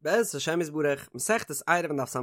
בעזרת השם יתברך, מסכת עירובין דף ס"ה,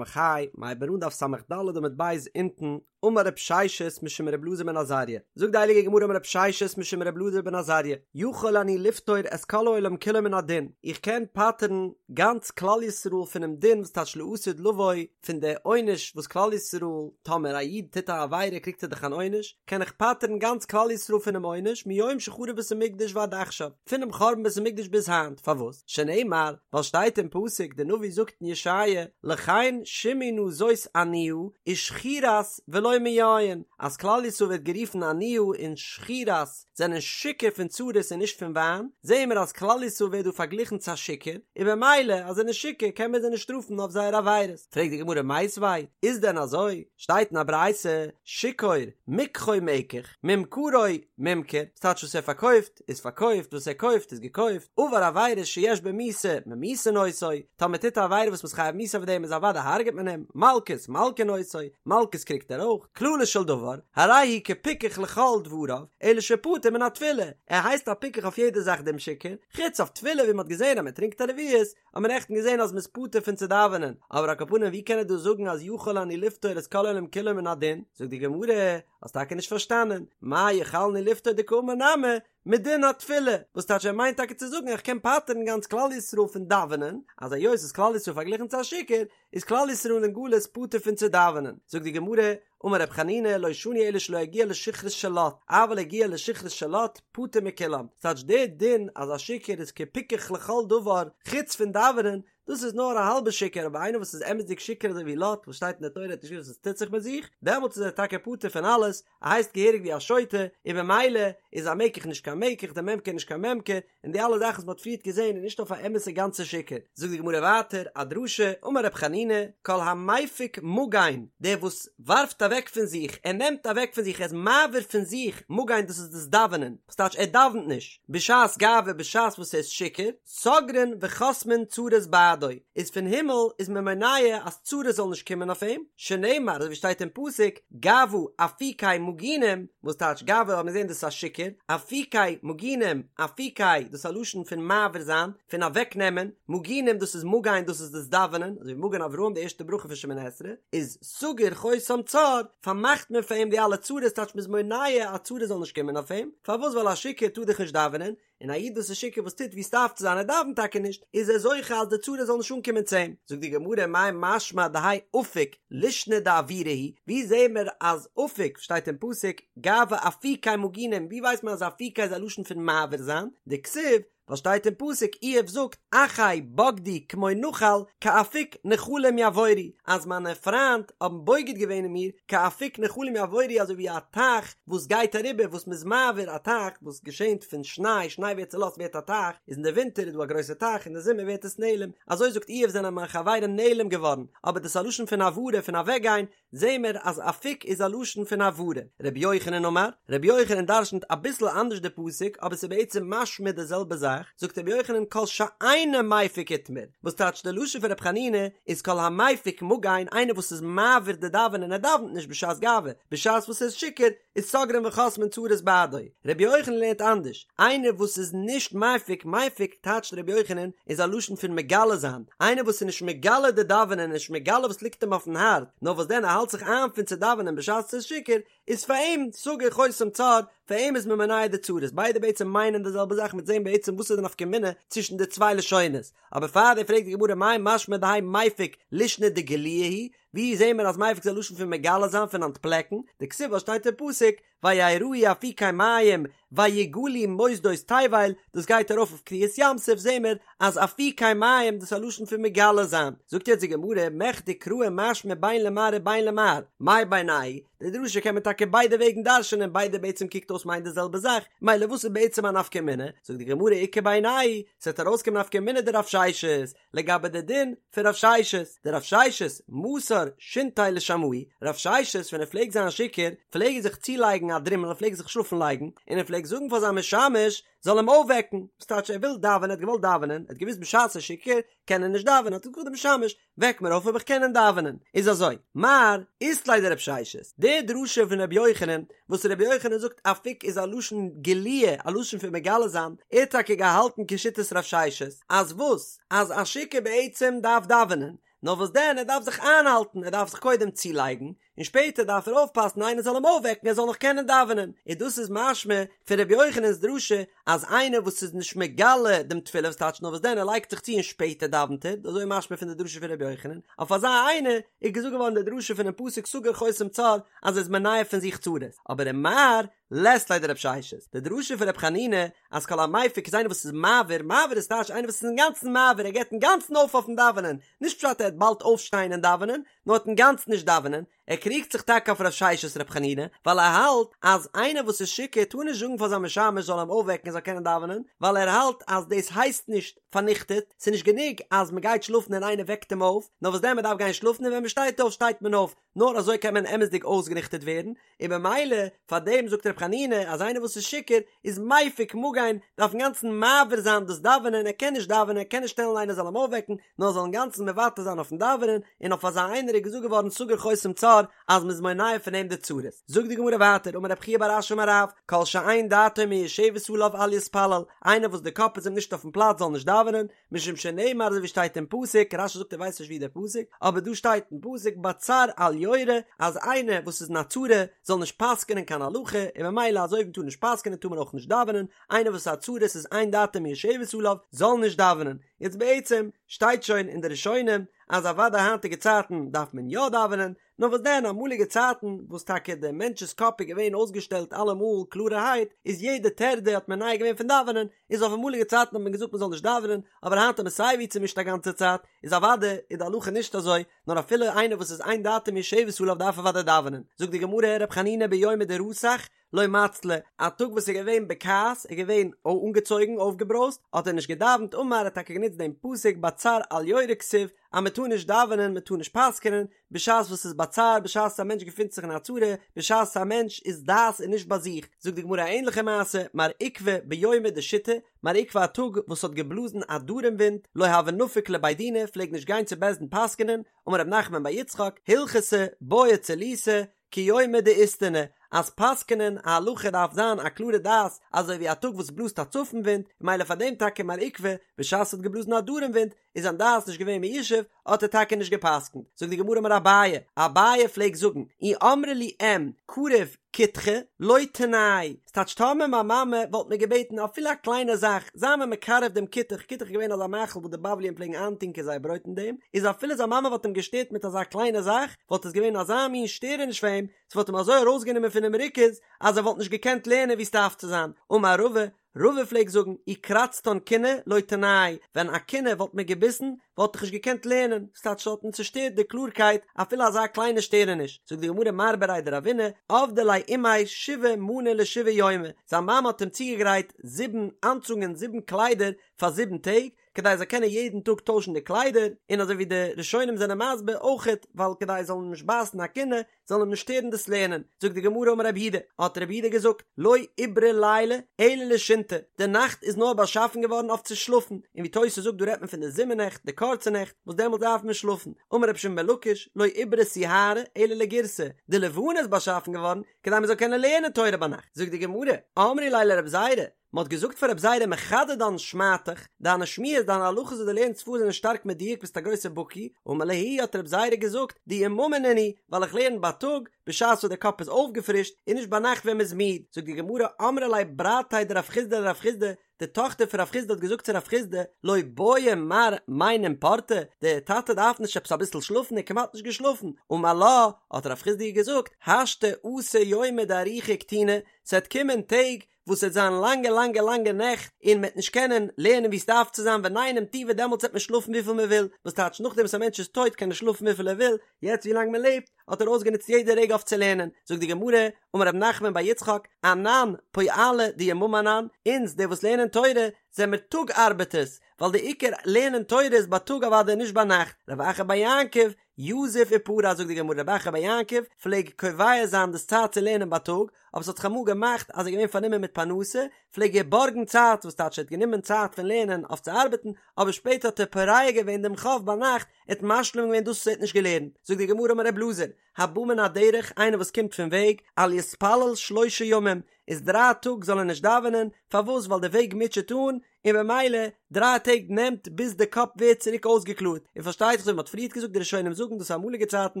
מ'הייבט אן דף ס"ד עמוד ב' אונטן, אמר רב ששת משום ר' אלעזר בן עזריה, זאגט די הייליגע גמרא אמר רב ששת משום ר' אלעזר בן עזריה, יכול אני לפטור את כל העולם כולו מן הדין, איך קען פטר'ן גאנץ כלל ישראל פונעם דין וואס טייטש לעתיד לבוא, פון די עונש וואס כלל ישראל, טאמער א איד טוט א עבירה קריגט ער דאך אן עונש, קען איך פטר'ן גאנץ כלל ישראל פונעם עונש מיום שחרב בית המקדש ועד עכשיו. פונעם חורבן בית המקדש ביז היינט, פארוואס? שנאמר, ווייל שטייט אין פסוק, די נביא זאגט אין ישעיה, לכן שמעי נא זאת עניה, ושכורת ולא מיין, אז כלל ישראל ווערט גערופן עניה און שכורת, זענען שיכור פון צרות און נישט פון וויין, זעען מיר אז כלל ישראל ווערט דא פארגליכן צו א שיכור, און במילא אז זיי זענען שיכור קען מען זיי נישט שטראפן אויף זייער עבירות. פרעגט די גמרא מיתיבי, איז דען אזוי? שטייט אין א ברייתא, שיכור, מקחו מקח, ממכרו ממכר, ס'טייטש וואס ער פארקויפט איז פארקויפט, וואס ער קויפט איז געקויפט, עבר עבירה שיש בה מיתה, ממיתין אותו, טאמער טוט א עבירה וואס מ'איז חייב מיתה אויף דעם איז אוודאי הרג'ט מען אים, מלקות, מלקין אותו, מלקות קריגט ער אויך, כללו של דבר, הרי הוא כפיקח לכל דבריו, אלא שפטור מן התפילה, ער הייסט א פיקח אויף יעדע זאך דעם שיכור, חוץ אויף תפילה ווי מ'האט געזען אז מ'טרינקט א רביעית, האט מען נעכטן געזען אז מ'איז פטור פון צו דאווענען, אבער על כל פנים ווי קען ער דא זאגן אז יכול אני לפטור את כל העולם כולו מן הדין, זאגט די גמרא, האסט טאקע נישט פארשטאנען, מאי יכולני לפטור דקאמר נמי, מדין התפילה, וואס טייטש ער מיינט טאקע צו זאגן איך קען פטר'ן גאנץ כלל ישראל פון דאווענען, אז היות איז כלל ישראל פארגליכן צו א שיכור, איז כלל ישראל אין גלות פטור פון צו דאווענען, זאגט די גמרא, אמר רב חנינא לא שנו אלא שלא הגיע לשכרות של לוט, אבל הגיע לשכרות של לוט, פטור מכולם, ס'טייטש דער דין אז א שיכור איז כפיקח לכל דבר חוץ פון דאווענען, דאס איז נאר א האלבע שיכור אבער איינער וואס איז אמת'דיג שיכור אזוי ווי לוט וואס שטייט אין די תורה האט נישט געוואוסט וואס טוט זיך מיט זיך, דעמאלטס איז ער טאקע פטור פון אלעס, ער הייסט געהעריג ווי א שוטה, און במילא איז א מקח נישט קיין מקח, די ממכר נישט קיין ממכר, און די אלע זאכן וואס מ'האט פריערט געזען איז נישט אויף א אמת'ע גאנצע שיכור. זאגט די גמרא ווייטער א דרשה, אמר רב חנינא, כל המפיק מגן, דער וואס ווארפט אוועק פון זיך, ער נעמט אוועק פון זיך, ער איז מעביר פון זיך, מגן דאס איז דאס דאווענען, וואס טייטש ער דאווענט נישט, בשעת גאווה בשעת וואס ער איז שיכור, סוגרין וחוסמין צרות בעדו, איז פון הימל איז מען מונע אז צרות זאלן נישט קומען אויף אים, שנאמר אזוי ווי שטייט אין פסוק, גאוה אפיקי מגינים, וואס טייטש גאוה האט מען געזען דאס איז א שיכור, אפיקי מגינים, אפיקי דאס איז א לשון פון מעביר זיין, פון אוועק נעמען, מגינים דאס איז מגן דאס איז דאס דאווענען, אזוי ווי מגן אברהם די ערשטע ברכה פון שמונה עשרה, איז סגור חותם צר, פארמאכט מען פאר אים די אלע צרות, טייטש מען איז מונע אז צרות זאלן נישט קומען אויף אים, פארוואס ווייל א שיכור טאר דאך נישט דאווענען, און א איד וואס איז שיכור וואס טוט ווי ס'דארף צו זיין ער דאווענט טאקע נישט, איז ער זוכה אז די צרה זאל נישט אנקומען צו אים. זאגט די גמרא מאי משמע דהאי אפיק לישנא דעבורה הוא, ווי זעהן מיר אז אפיק שטייט אין פסוק גאוה אפיקי מגינים, ווי ווייסט מען אז אפיקי איז א לשון פון מעביר זיין, דכתיב ווייל שטייט אין פסוק איוב זאגט אחי בגדו כמו נחל כאפיק נחלים יעבורו, אז מיינע פריינד האבן בוגד געווען אין מיר כאפיק נחלים יעבורו אזוי ווי א טייך וואס גייט אריבער וואס מ'איז מעביר א טייך וואס געשענט פון שניי, שניי ווערט צולאזט ווערט א טייך, איז אין די ווינטער איז דא א גרויסע טייך אין די זומער ווערט עס נעלם, אזוי זאגט איוב זענען מיין חברים נעלם געווארן, אבער דאס איז א לשון פון העברה פון אוועקגיין, זעהן מיר אז אפיק איז א לשון פון העברה. רבי יוחנן אמר, רבי יוחנן דרשנ'ט אביסל אנדערש די פסוק אבער ס'איז בעצם משמע די זעלבע זאך, זאגט רבי יוחנן כל שאינו מפיק איתמר, וואס טייטש די לשון פון רבי חנינא איז כל המפיק מגן איינער וואס איז מעביר די דאווענען ער דאווענט נישט בשעת גאווה בשעת וואס ער איז שיכור איז סוגרין וחוסמין צרות בעדו רבי יוחנן לערנט אנדערש איינער וואס איז נישט מפיק מפיק טייטשט רבי יוחנן איז א לשון פון מגלה זיין איינער וואס איז נישט מגלה די דאווענען נישט מגלה וואס ליגט אים אויפן הארץ נאר וואס דען ער האלט זיך איין פון צו דאווענען בשעת ער איז שיכור איז פאר אים סגור חותם צר, פאר אים איז מען מונע די צרות, ביידע בעצם מיינען די זעלבע זאך מ'וועט זעהן בעצם וואס איז די נפקא מינה צווישן די צוויי לשונות, אבער פאר דעם פרעגט די גמרא מאי משמע דהאי מפיק לישנא דגלויי הוא, ווי זעהן מיר אז מפיק איז א לשון פון מגלה זיין פון אנטפלעקן, דכתיב וואס שטייט אין פסוק ויראו אפיקי מים ויגלו מוסדות תבל, דאס גייט ארויף אויף קריעת ים סוף זעהן מיר אז אפיקי מים דאס איז א לשון פון מגלה זיין, זאגט יעצט די גמרא מכדי קראי משמע בין למר ובין למר, מאי בינייהו, די דרשה קען מען טאקע ביידע וועגן דרש'נען ביידע בעצם קוקט אויס מיינט די זעלבע זאך, מילא וואס איז בעצם א נפקא מינה? זאגט די גמרא איכא בינייהו, ס'וועט ארויסקומען נפקא מינה דרב ששת, לגבי די דין פון רב ששת, דרב ששת מסר שינתיה לשמעיה, רב ששת ווען ער פלעגט זיין שיכור פלעג ער זיך צולייגן א דרימל ער פלעגט זיך שלאפן לייגן, און ער פלעגט זאגן פאר זיין משמש זאל אים אויפוועקן, וואס טייטש ער וויל דאווענען ער האט געוואלט דאווענען ער האט געוואוסט בשעת ער איז שיכור. קען ער נישט דאווענען, האט ער געזאגט דעם משמש, וועק מיר אויף אויב איך קען דאווענען. איז אזוי, מר אית ליה דרב ששת, די דרשה פון רבי יוחנן, וואס רבי יוחנן זאגט אפיק איז א לשון גילוי, א לשון פון מגלה זיין, ער האט טאקע געהאלטן כשיטת רב ששת, אז וואס? אז א שיכור בעצם דארף דאווענען, נאר וואס דען ער דארף זיך איינהאלטן, ער דארף זיך קודם צולייגן, און שפעטער דארף ער אויפפאסן איינער זאל אים אויפוועקן ער זאל נאך קענען דאווענען, און דאס איז משמע פון רבי יוחנן'ס דרשה אז איינער וואס איז נישט מגלה דעם תפילה וואס טייטש נאר וואס דען ער לייגט זיך צו און שפעטער דאווענט ער, אזוי איז משמע פון די דרשה פון רבי יוחנן, אויף אזא איינער איז געזאגט געווארן די דרשה פונעם פסוק סגור חותם צר אז ער איז מונע פון זיך צרות, אבער ומר לית ליה דרב ששת, די דרשה פון רבי חנינא אז כל המפיק איז איינער וואס איז מעביר, מעביר איז טייטש איינער וואס איז אינגאנצן מעביר ער געבט אינגאנצן אויף אויפן דאווענען, נישט פשט ער וועט באלד אויפשטיין און דאווענען, נאר וועט אינגאנצן נישט דאווענען, ער קריגט זיך טאקע אויף רב ששת רב חנינא, ווייל ער האלט אז איינער וואס איז שיכור טאר נישט זאגן פאר זיין משמש זאל אים אויפוועקן ער זאל קענען דאווענען, ווייל ער האלט אז דאס הייסט נישט פארניכטעט, ס'איז נישט גענוג אז מ'גייט שלאפן און איינער וועקט אים אויף, נאר וואס דען מ'דארף גיין שלאפן און ווען מ'שטייט אויף שטייט מען אויף, נאר אזוי קען מען אמת'דיג אויסגעניכטערט ווערן, און במילא פאר דעם זאגט ר' חנינא אז איינער וואס איז שיכור איז מפיק מגן, דארף אינגאנצן מעביר זיין דאס דאווענען, ער קען נישט דאווענען, ער קען נישט שטעלן איינער זאל אים אויפוועקן, נאר זאל אינגאנצן מוותר זיין אויפן דאווענען, און אויף אזא איינער איז געזאגט געווארן סגור חותם צר אז מ'איז מונע פון אים די צרות. זאגט די גמרא ווייטער אמר רב חייא בר אשי אמר רב, כל שאין דעתו מיושבת עליו אל יתפלל, איינער וואס די קאפ איז אים נישט אויפן פלאץ זאל נישט דאווענען, משום שנאמר אזוי ווי שטייט אין פסוק, רש"י זאגט ער ווייסט נישט ווי דער פסוק, אבער דא שטייט אין פסוק בצר אל יורה, אז איינער וואס איז אין א צרה זאל נישט פסק'נען קיין הלכה, און ממילא אזוי ווי מ'טאר נישט פסק'נען טאר מען אויך נישט דאווענען, איינער וואס איז א צרה ס'איז אין דעתו מיושבת עליו זאל נישט דאווענען, יעצט בעצם שטייט שוין אין די ראשונים אז אוודאי היינטיגע צייטן דארף מען יא דאווענען, נאר וואס דען אמאליגע צייטן וואס טאקע דער מענטש'ס קאפ איז געווען אויסגעשטעלט אלעמאל קלארערהייט איז יעדע טרדה האט מונע געווען פון דאווענען, איז אויף אמאליגע צייטן האט מען געזאגט מען זאל נישט דאווענען, אבער היינט איז מען סייווי צומישט א גאנצע צייט, איז אוודאי איז די הלכה נישט אזוי, נאר אפילו איינער וואס איז אין דעתו מיושבת עליו דארף אוודאי דאווענען, זאגט די גמרא ר' חנינא ביומא דרתח לא מצלי, א טאג וואס איז געווען בכעס, איז געווען אנגעצויגן, אויפגעברויזט, האט ער נישט געדאווענט, אמר ער האט טאקע גענוצט דעם פסוק בצר אל יורה כתיב, אז מען טאר נישט דאווענען, מען טאר נישט פסק'נען, בשעת וואס ס'איז בצר, בשעת א מענטש געפינט זיך אין א צרה, בשעת א מענטש איז דעת איז נישט ביי זיך, זאגט די גמרא א ענליכע מעשה, מר עוקבא ביומא דשיטי, מר עוקבא א טאג וואס האט געבלאזן א דרום ווינט, לא הוה נפיק לבי דינא, פלעג נישט גיין צו בית דין פסק'נען, אמר רב נחמן בר יצחק, הלכתא בעיא צילותא, כיומא דאיסתנא, אז פסק'נען א הלכה דארף זיין א קלארע דעת, אזוי ווי א טאג וואס בלאזט א צפון ווינט, ממילא פאר דעם טאקע מר עוקבא, בשעת ס'האט געבלאזן א דרום ווינט, איז זיין דעת נישט געווען מיושב, האט ער טאקע נישט געפסקנט. זאגט די גמרא אמר אביי, אביי פלעגט זאגן, אי אמרה לי אם, קריב כותחא, לא תנאי, ס'טייטש טאמער מיין מאמע וואלט מיר געבעטן אפילו א קליינע זאך, זיי מיר מקרב דעם כותח, כותח איז געווען אזא מאכל וואס די בבליים פלעגן איינטונקען זייער ברויט אין דעם, איז אפילו זיין מאמע וואלט אים געשטערט מיט אזא קליינע זאך, וואלט עס געווען אזא מין שטערעניש פאר אים, ס'וואלט אים אזוי ארויסגענומען פונעם ריכוז, אז ער וואלט נישט געקענט לערנען ווי ס'דארף צו זיין. אמר רבא, רבא פלעגט זאגן, אי קרצתן כינה לא תנאי, ווען א כינה וואלט מיר געביסן, וואלט איך נישט געקענט לערנען, ס'טייטש ס'וואלט מיר צושטערט די קלארקייט, אפילו אזא קליינע שטערעניש. זאגט די גמרא מר בריה דרבינא, עבדה ליה אימיה שבעה מאני לשבעה יומי, זיין מאמע האט אים צוגעגרייט זיבן אנצונגען, זיבן קליידער, פאר זיבן טעג, כדי ער זאל קענען יעדן טאג טוישן די קליידער, און אזוי ווי די ראשונים זענען מסביר אויכעט ווייל כדי עס זאל אים נישט בייסן א כינה, זאל אים נישט שטערן דאס לערנען, זאגט די גמרא אמר רב יהודה, האט רב יהודה געזאגט, לא עיברה ליליא אלא לשינתא, די נאכט איז נאר באשאפן געווארן אויף צו שלאפן, און ווי תוס' זאגט דא רעדט מען פון די זומער נעכט, די קורצע נעכט, וואס דעמאלט דארף מען שלאפן, אמר רבי שמעון בן לקיש, לא עיברה סיהרא אלא לגירסא, די לבנה איז באשאפן געווארן כדי מען זאל קענען לערנען תורה ביינאכט, זאגט די גמרא, אמרי ליה לרב זירא, מען האט געזאגט פאר רב זירא מחדדן שמעתך, דיינע שמועות, דיינע הלכות וואס דו לערנסט פאר זענען שטארק מדויק ביסט א גרויסער בקי, אמר להו האט רב זירא געזאגט, דיממא נינהו, ווייל איך לערן בייטאג, בשעת וואס דער קאפ איז אויפגעפרישט, און נישט ביינאכט ווען מען איז מיד, זאגט די גמרא, אמרה ליה ברתיה דרב חסדא לרב חסדא, די טאכטער פון רב חסדא האט געזאגט צו רב חסדא, לא בעי מר מינם פורתא, דער טאטע דארף נישט עפעס אביסל שלאפן, ער האט כמעט נישט געשלאפן, אמר לה, האט רב חסדא איר געזאגט, השתא אתי יומי דאריכי וקטיני, ס'וועט קומען טעג וואס ס'וועט זיין לאנגע לאנגע לאנגע נעכט און מ'וועט נישט קענען לערנען ווי ס'דארף צו זיין וניינם טובא דעמאלטס וועט מען שלאפן וויפיל מען וויל, וואס טייטש נאכדעם וואס א מענטש איז טויט קען ער שלאפן וויפיל ער וויל, יעצט ווי לאנג מען לעבט האט ער אויסגענוצט יעדע רגע אויף צו לערנען, זאגט די גמרא, אמר רב נחמן בר יצחק, אנן פועלי דיממא אנן, אונז די וואס לערנען תורה, זעמיר טאג ארבעטערס, ווייל די עיקר לערנען תורה איז בייטאג אוודאי נישט ביינאכט, רב אחא בר יעקב, יזיף ופרע זאגט די גמרא רב אחא בר יעקב פלעג קובע זיין דאס צייט צו לערנען בייטאג, אבער ס'האט זיך אמאל געמאכט אז ער איז געווען פארנומען מיט פרנסה, פלעג ער בארגן צייט, וואס טייטש ער האט גענומען צייט פון לערנען אויף צו ארבעטן, אבער שפעטער האט ער פורע געווען דעם חוב ביינאכט, ער האט משלים געווען דאס וואס ער האט נישט געלערנט, זאגט די גמרא אמר ר' אלעזר, הבא מן הדרך, איינער וואס קומט פון וועג, אל יתפלל שלשה ימים, איז דריי טאג זאל ער נישט דאווענען, פארוואס ווייל די וועג מוטשעט אן, און במילא דריי טעג נעמט ביז די קאפ ווערט צוריק אויסגעקלארט, און פארשטייט זיך אזוי ווי מ'האט פריערט געזאגט די ראשונים זאגן דאס אמאליגע צייטן,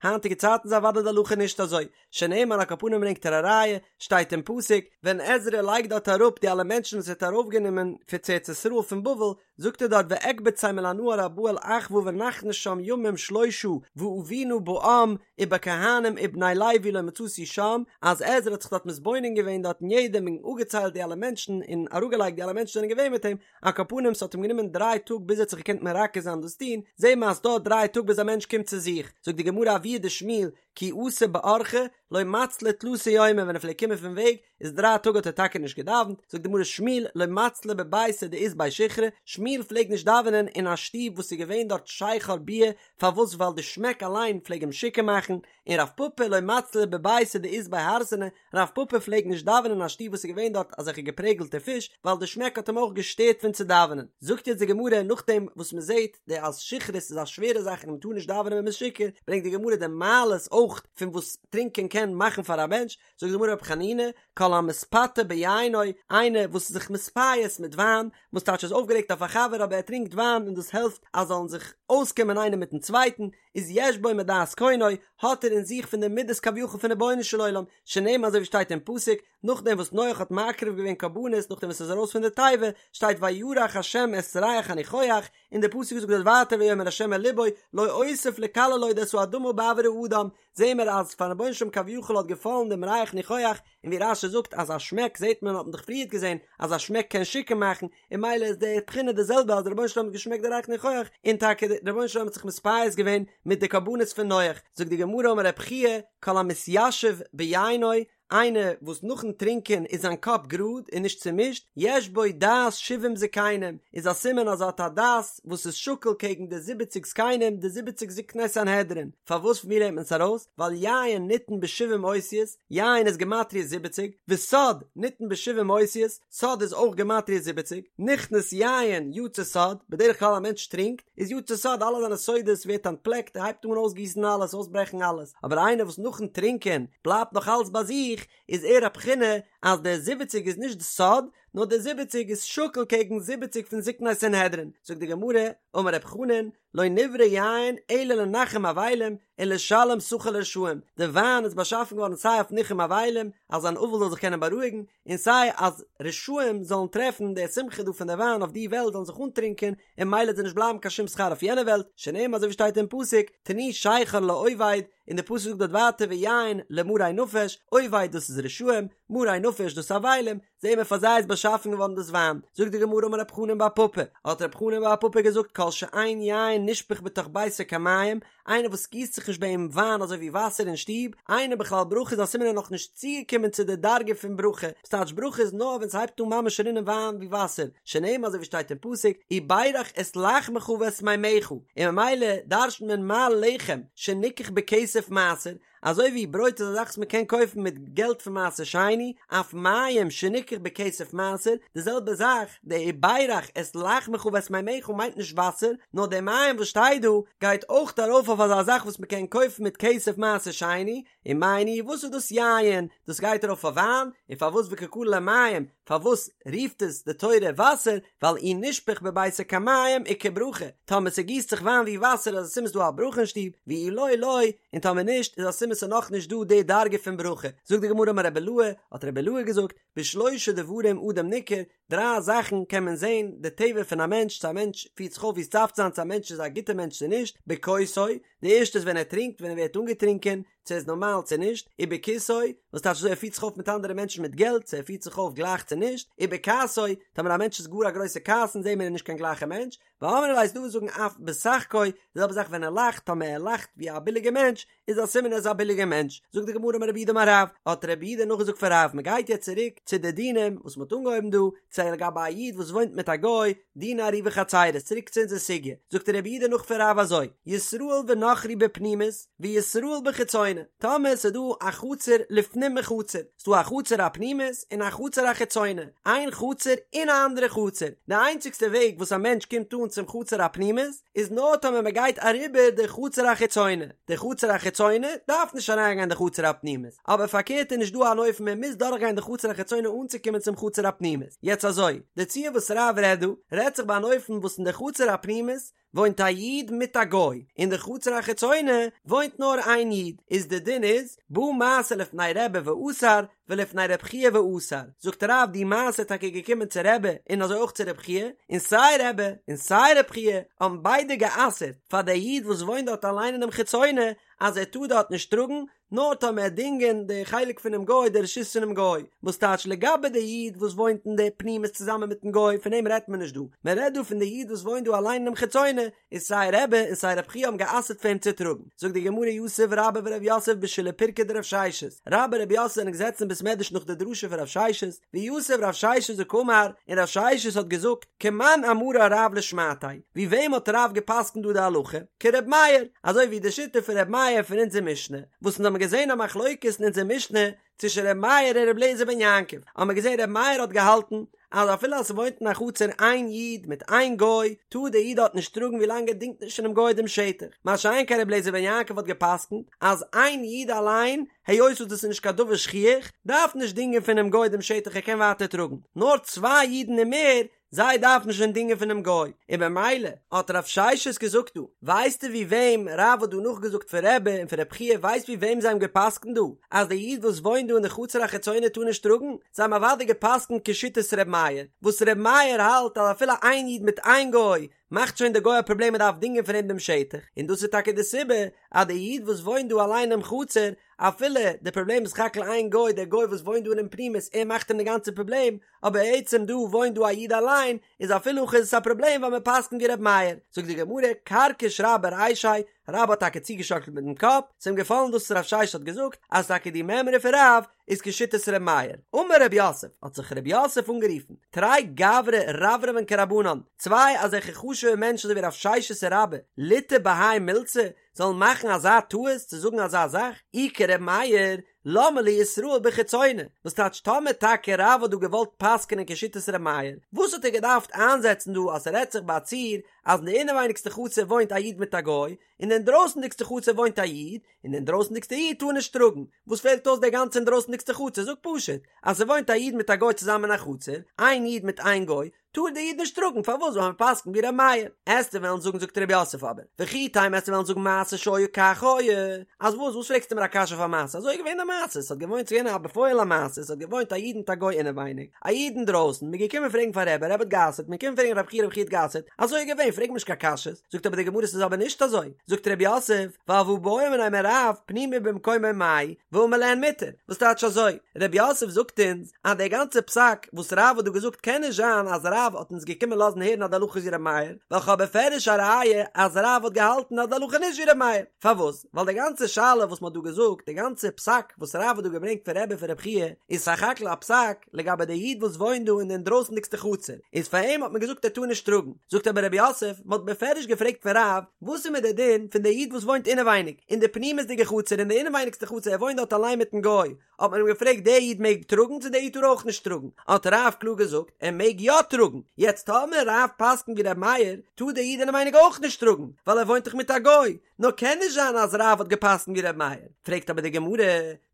היינטיגע צייטן איז אוודאי די הלכה נישט אזוי, שנאמר על כל פנים ברענגט ער א ראיה, שטייט אין פסוק, ווען עזרא לייגט דארט אראפ די אלע מענטשן וואס ער האט ארויפגענומען פון צו ארץ ישראל פון בבל, זאגט ער דארט ואקבצם אל הנהר הבא אל אהוא ונחנה שם ימים שלשה ואבינה בעם ובכהנים ובני לוי לא מצאתי שם, אז עזרא האט זיך דארט מתבונן געווען דארט אין יעדעם און אפגעציילט די אלע מענטשן און אראפגעלייגט די אלע מענטשן זענען געווען מיט אים, על כל פנים ס'האט אים גענומען דריי טאג ביז ער האט זיך געקענט מרכז זיין דאס טון, זעהן מיר אז ס'דויערט דריי טאג ביז א מענטש קומט צו זיך, זאגט די גמרא אבוה דשמואל כי אתא באורחא לא מצלי תלתא יומי ווען ער פלעגט קומען פון וועג איז דריי טאג האט ער טאקע נישט געדאווענט, זאגט די גמרא שמואל לא מצלי בביתא דאית ביה שיכרא, שמואל פלעגט נישט דאווענען אין א שטוב וואס איז געווען דארט שכר ביאה, פארוואס ווייל די שמעק אליין פלעג אים שיכור מאכן, און רב פפא לא מצלי בביתא דאית ביה הרסנא, רב פפא פלעגט נישט דאווענען אין א שטוב וואס איז געווען דארט אזעלכע געפרעגלטע פיש, ווייל די שמעק האט אים אויך געשטערט פון צו דאווענען. זאגט יעצט די גמרא נאכדעם וואס מען זעט די אז שכרות איז א שווערע זאך און מען טאר נישט דאווענען ווען מען איז שיכור, ברענגט די גמרא די מעלות אויך פון וואס טרינקען קען מאכן פאר א מענטש, זאגט די גמרא רבי חנינא, כל המתפתה ביינו, איינער וואס איז זיך מתפייס מיט וויין, וואס טייטש איז אויפגערעגט אויף א חבר אבער ער טרינקט וויין און דאס העלפט אז זאלן זיך אויסקומען איינער מיטן צווייטן, איז יש בו מדעת קונו, האט ער אין זיך פון די מידות כביכול פון רבונו של עולם, שנאמר אזוי ווי שטייט אין פסוק, נאכדעם וואס נח האט מקריב געווען קרבנות נאכדעם וואס ער איז ארויס פון די תיבה, שטייט וירח השם את ריח הניחוח, און דער פסוק זאגט דארט ווייטער ויאמר השם אל לבו לא אוסיף לקלל עוד את האדמה בעבור האדם, זעהן מיר אז פארן רבונו של עולם כביכול האט געפאלן דעם ריח ניחוח, און ווי רש"י זאגט אז א שמעק זעהט מען האט מען דאך פריערט געזעהן אז א שמעק קען שיכור מאכן, און ממילא איז די בחינה די זעלבע אז דער רבונו של עולם האט געשמעקט די ריח ניחוח, און טאקע דער רבונו של עולם האט זיך מתפייס געווען מיט די קרבנות פון נח, זאגט די גמרא אמר רב חייא כל המתיישב ביינו, איינער וואס נאכן טרינקען איז זיין קאפ גראד און נישט צומישט, יש בו דעת שבעים זקנים, איז א סימן אז ער האט א דעת וואס איז שקול קעגן די זיבעציג זקנים, די זיבעציג זקני סנהדרין. פארוואס פון ווי לערנט מען עס ארויס? ווייל יין ניתן בשבעים אותיות, יין איז גמטריא זיבעציג, וסוד ניתן בשבעים אותיות, סוד איז אויך גמטריא זיבעציג, נכנס יין יצא סוד, בדרך כלל א מענטש טרינקט, איז יצא סוד אלע זיינע סודות ווערט אנטפלעקט ער הייבט אן אויסגיסן אלעס אויסברעכן אלעס, אבער איינער וואס נאכן טרינקען בלייבט נאך אלס ביי זיך, איז ער א בחינה אז דער זיבעציג איז נישט די סוד, נאר דער זיבעציג איז שקול קעגן זיבעציג פון זקני סנהדרין, זאגט די גמרא, אמר רב חנן, לא נברא יין אלא לנחם אבלים ולשלם שכר לרשעים, די וויין איז באשאפן געווארן סיי אויף ניחום אבלים, אז אן אבל זאל זיך קענען בארואיגן, און סיי אז רשעים זאלן טרעפן די שמחה דא פון די וויין אויף די וועלט זאלן זיך אנטרינקען, און ממילא וועט זיי נישט בלייבן קיין שום שכר אויף יענע וועלט, שנאמר אזוי ווי שטייט אין פסוק, תנו שכר לאובד, און די פסוק זאגט דארט ווייטער ויין למרי נפש, אובד דאס איז רשעים, מרי נפש דאס איז אבלים, זעהן מיר פאר זיי איז באשאפן געווארן דאס וויין, זאגט די גמרא אמר רב חנן בר פפא, האט רב חנן בר פפא געזאגט כל שאין יין נשפך בתוך ביתו כמים, איינער וואס גיסט זיך נישט ביי אים וויין אזוי ווי וואסער אין שטוב, אינו בכלל ברכה איז א סימן ער איז נאך נישט צוגעקומען צו די דרגה פון ברכה, וואס טייטש ברכה איז נאר ווען ס'הייבט אן ממש רינען וויין ווי וואסער, שנאמר אזוי ווי שטייט אין פסוק וברך את לחמך ואת מימיך, און ממילא דרש'נט מען מה לחם שניקח בכסף מעשר, אזוי ווי ברויט איז א זאך וואס מען קען קויפן מיט געלט פון מעשר שני, אף מים שניקח בכסף מעשר, די זעלבע זאך, די וברך את לחמך ואת מימיך מיינט נישט וואסער, נאר די מים וואס שטייט דא גייט אויך ארויף אויף אזא זאך וואס מען קען קויפן מיט כסף מעשר שני, ומאי ניהו וואס איז דאס יין? דאס גייט ארויף אויף וויין, און פארוואס וקא קרי ליה מים? פארוואס רופט עס די תורה וואסער? ווייל אי נשפך בביתו כמים איכא ברכה, טאמער ס'גיסט זיך וויין ווי וואסער איז א סימן ס'דא א ברכה אין שטוב, ואי לא לא, און טאמער נישט איז א סימן ס'איז נאכנישט דא די דרגה פון ברכה. זאגט די גמרא אמר רבי אילעא, האט רבי אילעא געזאגט, בשלושה דברים אדם ניכר, דריי זאכן קען מען זען די טבע פון א מענטש, צו א מענטש פירט זיך אויף ווי עס דארף צו זיין, צו א מענטש איז א גוטער מענטש צו נישט, בכוסו, די ערשטע איז ווען ער טרינקט, ווען ער ווערט אנגעטרינקען, צו ער איז נארמאל צו נישט, ובכיסו, וואס טייטש אזוי ער פירט זיך אויף מיט אנדערע מענטשן מיט געלט, צו ער פירט זיך אויף גלייך צו נישט, ובכעסו, טאמער א מענטש איז גאר א גרויסע כעסן זעהן מיר ער איז נישט קיין גלייכע מענטש, ואמרי לה ס'איז דא וואס זאגן אף בשחקו, די זעלבע זאך ווען ער לאכט, טאמער ער לאכט ווי א ביליגע מענטש, איז א סימן ער איז א ביליגע מענטש, זאגט די גמרא אמר רב יהודה אמר רב, האט רב יהודה נאכגעזאגט פון רב, מען גייט יעצט צוריק צו די דינים וואס מען האט אנגעהויבן דא, צו לגבי א איד וואס וואוינט מיט א גוי, דיני עירובי חצירות, צוריק צו אונזער סוגיא, זאגט רב יהודה נאך פון רב אזוי, ישראל ונכרי בפנימית, וישראל בחיצונה, טאמער ס'איז דא א חצר לפנים מחצר, ס'דא א חצר הפנימית און א חצר החיצונה, איין חצר אין א אנדערע חצר, די איינציגסטע וועג וואס א מענטש קומט אן צום חצר הפנימית איז נאר טאמער מען גייט אריבער די חצר החיצונה, די חצר החיצונה דארף נישט אריינגיין די חצר הפנימית, אבער פארקערט איז נישט דא אן אופן מען מוז דורכגיין די חצר החיצונה אנצוקומען צום חצר הפנימית, יעצט אזוי, די ציור וואס רב רעדט דא, רעדט זיך ביי אן אופן וואס אין די חצר הפנימית וואוינט א איד מיט א גוי, אין די חצר החיצונה וואוינט נאר איין איד, איז די דין איז, בא מעשה לפני רבי ואסר, ולפני רב חייא ואסר, זאגט רב די מעשה איז טאקע געקומען צו רבי און אזוי אויך צו רב חייא, און סיי רבי און סיי רב חייא האבן ביידע גע'אסר'ט פאר די איד וואס וואוינט דארט אליין אינעם חיצונה אז ער טאר דארט נישט טראגן, נאר טאמער דינגען די חלק פונעם גוי די רשות פונעם גוי, וואס טייטש לגבי די איד וואס וואוינט אין די פנימית צוזאמען מיטן גוי פון אים רעדט מען נישט דא, מען רעדט דא פון די איד וואס וואוינט דא אליין אינעם חיצונה, איז סיי רבי און סיי רב חייא האבן גע'אסר'ט פאר אים צו טראגן, זאגט די גמרא יתיב רבה ורב יוסף בשילהי פירקא דרב ששת, רבה און רב יוסף זענען געזעצן אין בית מדרש נאך די דרשה פון רב ששת, ויתיב רב ששת וקאמר, און רב ששת האט געזאגט, כמאן אמרה רב לשמעתיה, ווי וועם האט רב גע'פסק'נט דא די הלכה? כר' מאיר, אזוי ווי די שיטה פון ר' מאיר פון אונזער משנה, וואס אונז האבן געזען א מחלוקת אין אונזער משנה צווישן ר' מאיר און ר' אליעזר בן יעקב, האבן מיר געזען ר' מאיר האט געהאלטן אז אפילו אז ס'וואוינט אין א חצר איין איד מיט איין גוי, טאר דער איד דארט נישט טראגן ווי לאנג ער דינגט נישט פונעם גוי דעם שטח, מה שאין כן ר' אליעזר בן יעקב האט גע'פסק'נט אז איין איד אליין, היות וואס דאס איז נישט קיין דבר שכיח, דארף נישט דינגען פונעם גוי דעם שטח ער קען ווייטער טראגן, נאר צוויי אידן און מער זיי דארפן שוין דינגען פונעם גוי, און במילא האט רב ששת געזאגט דא, ווייסטו ווי וועם רב האט דא נאכגעזאגט פון רבי און פון רב חייא ווייסט ווי וועם זיי האבן געפסקנט דא אז די איד וואס וואוינט דא אין די חצר החיצונה טאר נישט טראגן, זיי האבן אוודאי געפסקנט כשיטת ר' מאיר, וואס ר' מאיר האלט אז אפילו איין איד מיט איין גוי מאכט שוין די גוי א פראבלעם מען דארף דינגען פון אים דעם שטח, און דאס איז טאקע די סיבה אז די איד וואס וואוינט דא אליין אינעם חצר אפילו די פראבלעם איז סך הכל איין גוי דער גוי וואס וואוינט דא אינעם פנימית ער מאכט אים די גאנצע פראבלעם, אבער עצם דא וואוינט דא א איד אליין איז אפילו הכי איז עס א פראבלעם ווייל מען פסק'נט ווי ר' מאיר, זאגט די גמרא כרכיש רבה רישיה, רבה האט טאקע צוגעשאקלט מיטן קאפ, ס'איז אים געפאלן דאס וואס רב ששת האט געזאגט אז טאקע די מימרא פון רב איז כשיטת ר' מאיר, אמר רב יוסף, האט זיך רב יוסף אנגערופן, תרי גברי רברבן כרבנן, צוויי אזעלכע חשוב'ע מענטשן אזוי ווי רב ששת און רבה, ליטעו בהאי מילתא, זאלן מאכן אזא טעות צו זאגן אזא זאך, אי כר' מאיר, למה לי ישראל בחיצונה, וואס טייטש טאמער טאקע רב האט דא געוואלט פסק'נען כשיטת ר' מאיר, וואס האט ער געדארפט איינזעצן דא אז ס'רעדט זיך ביי א ציור אז אין די אינעווייניגסטע חצר וואוינט א איד מיט א גוי, און די אינדרויסנדיגסטע חצר וואוינט א איד, און די אינדרויסנדיגסטע איד טאר נישט טראגן, וואס פעלט אויס די גאנצע אינדרויסנדיגסטע חצר, זאג פשוט אז ס'וואוינט א איד מיט א גוי צוזאמען אין א חצר, איין איד מיט איין גוי, טאר דער איד נישט טראגן, פארוואס ווייל מען פסק'נט ווי ר' מאיר? עסטו וועלן זאגן זאגט ר' יוסף אבער, וכי תימא עסטו וועלן זאגן מעשה שהיה כך היה, אז וואס וואס פרעגסטו מיר א קשיא אויף א מעשה, אזוי איז געווען די מעשה, עס האט געוואוינט ס'איז געווען א בפועל א מעשה, עס האט געוואוינט א איד מיט א גוי אינעווייניג, א איד אינדרויסן, מ'איז געקומען פרעגן פאר רבי, רבי האט גע'אסר'ט, מ'איז געקומען פרעגן רב חייא רב חייא האט גע'אסר'ט, אזוי איז געווען, פרעג מיר נישט קיין קשיות, זאגט אבער די גמרא ס'איז אבער נישט אזוי, זאגט ר' יוסף, ווייל והא בעו מיניה מרב פנימי במקומו מאי, ואמר להן מותר, וואס טייטש אזוי? ר' יוסף זאגט אונז אז דער גאנצער פסק וואס רב האט דא געזאגט קען נישט זיין אז רב האט אונז געקומען לאזן הערן אז די הלכה איז ווי ר' מאיר, ווייל כ'האב בפירוש א ראיה אז רב האט געהאלטן אז די הלכה איז נישט ווי ר' מאיר. פארוואס? ווייל די גאנצע שאלה וואס מ'האט דא געזאגט, די גאנצע פסק וואס רב האט דא געברענגט פון רבי פון רב חייא, איז סך הכל א פסק לגבי די איד וואס וואוינט דא אין די אינדרויסנדיגסטע חצר, איז פאר אים האט מען געזאגט ער טאר נישט טראגן. זאגט אבער רב יוסף, מ'האט בפירוש געפרעגט פון רב, וואס איז מיט די דין פון די איד וואס וואוינט אינעווייניג, אין די פנימיות'דיגע חצר, אין די אינעווייניגסטע חצר, ער וואוינט דארט אליין מיטן גוי, האט מען אים געפרעגט דער איד מעג טראגן צו דער איד טאר אויך נישט טראגן, האט רב קלאר געזאגט ער מעג יא טראגן, יעצט טאמער רב פסק'נט ווי ר' מאיר, טאר דער איד אינעווייניג אויך נישט טראגן, ווייל ער וואוינט דאך מיט א גוי, נאר קען נישט זיין אז רב האט געפסק'נט ווי ר' מאיר, פרעגט אבער די גמרא,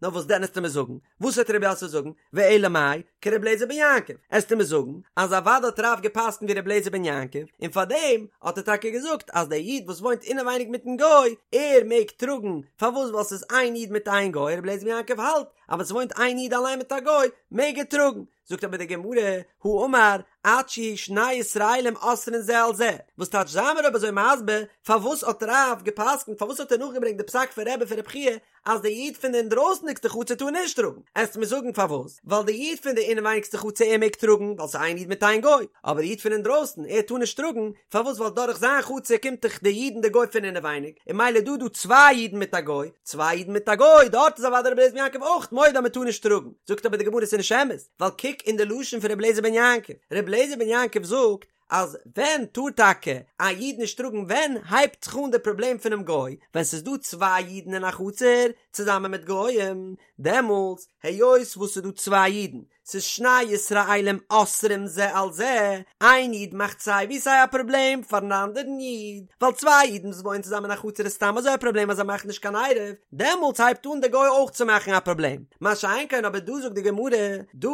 נאר וואס דען עסטו מיר זאגן, וואס וועט רב יוסף זאגן, ואלא מאי, כר' אליעזר בן יעקב, עסטו מיר זאגן אז אוודאי האט רב געפסק'נט ווי ר' אליעזר בן יעקב, און פארדעם האט ער טאקע געזאגט אז דער איד וואס וואוינט אינעווייניג מיטן גוי, ער מעג טראגן, פארוואס ווייל ס'איז איין איד מיט איין גוי, ר' אליעזר בן יעקב האלט אז ווען ס'וואוינט איין איד אליין מיט א גוי, מעג ער טראגן. זאגט אבער די גמרא, הא אמר עד שיהו שני ישראלים אוסרין זה על זה, וואס טייטש זיי מיר אויב אזוי מסביר פארוואס האט רב גע'פסק'נט פארוואס האט ער נאכגעברענגט די פסק פון רבי פון רבי חייא אז די איד פון די אינדרויסנדיגסטע חצר טאר נישט טראגן, עסט מיר זאגן פארוואס? ווייל די איד פון די אינעווייניגסטע חצר ער מעג טראגן ווייל ס'איז איין איד מיט איין גוי, אבער די איד פון אינדרויסן ער טאר נישט טראגן, פארוואס ווייל דורך זיין חצר קומט דאך די איד און די גוי פון אינעווייניג, און ממילא דא דא צוויי אידן מיט א גוי, צוויי אידן מיט א גוי, דארט איז אוודאי רבי אליעזר בן יעקב אויך מודה אז מ'טאר נישט טראגן, זאגט אבער די גמרא ס'איז נישט אמת, ווייל קוק אין די לשון פון רבי אליעזר בן יעקב, רבי אליעזר בן יעקב זאגט אז ווען טאר טאקע א איד נישט טראגן ווען הייבט זיך אן די פראבלעם פונעם גוי, ווען ס'איז דא צוויי אידן אין א חצר צוזאמען מיט גויים, דעמאלטס היות וואס ס'איז דא צוויי אידן, ס'איז שני ישראלים אוסרים זה על זה, איין איד מאכט סיי ווי סיי א פראבלעם פארן אנדערן איד, ווייל צוויי אידן וואס וואוינען צוזאמען אין א חצר איז סתם אזוי א פראבלעם אז זיי מאכן נישט קיין עירוב, דעמאלטס הייבט אן דער גוי אויך צו מאכן א פראבלעם, מה שאין כן אבער דא זאגט די גמרא, דא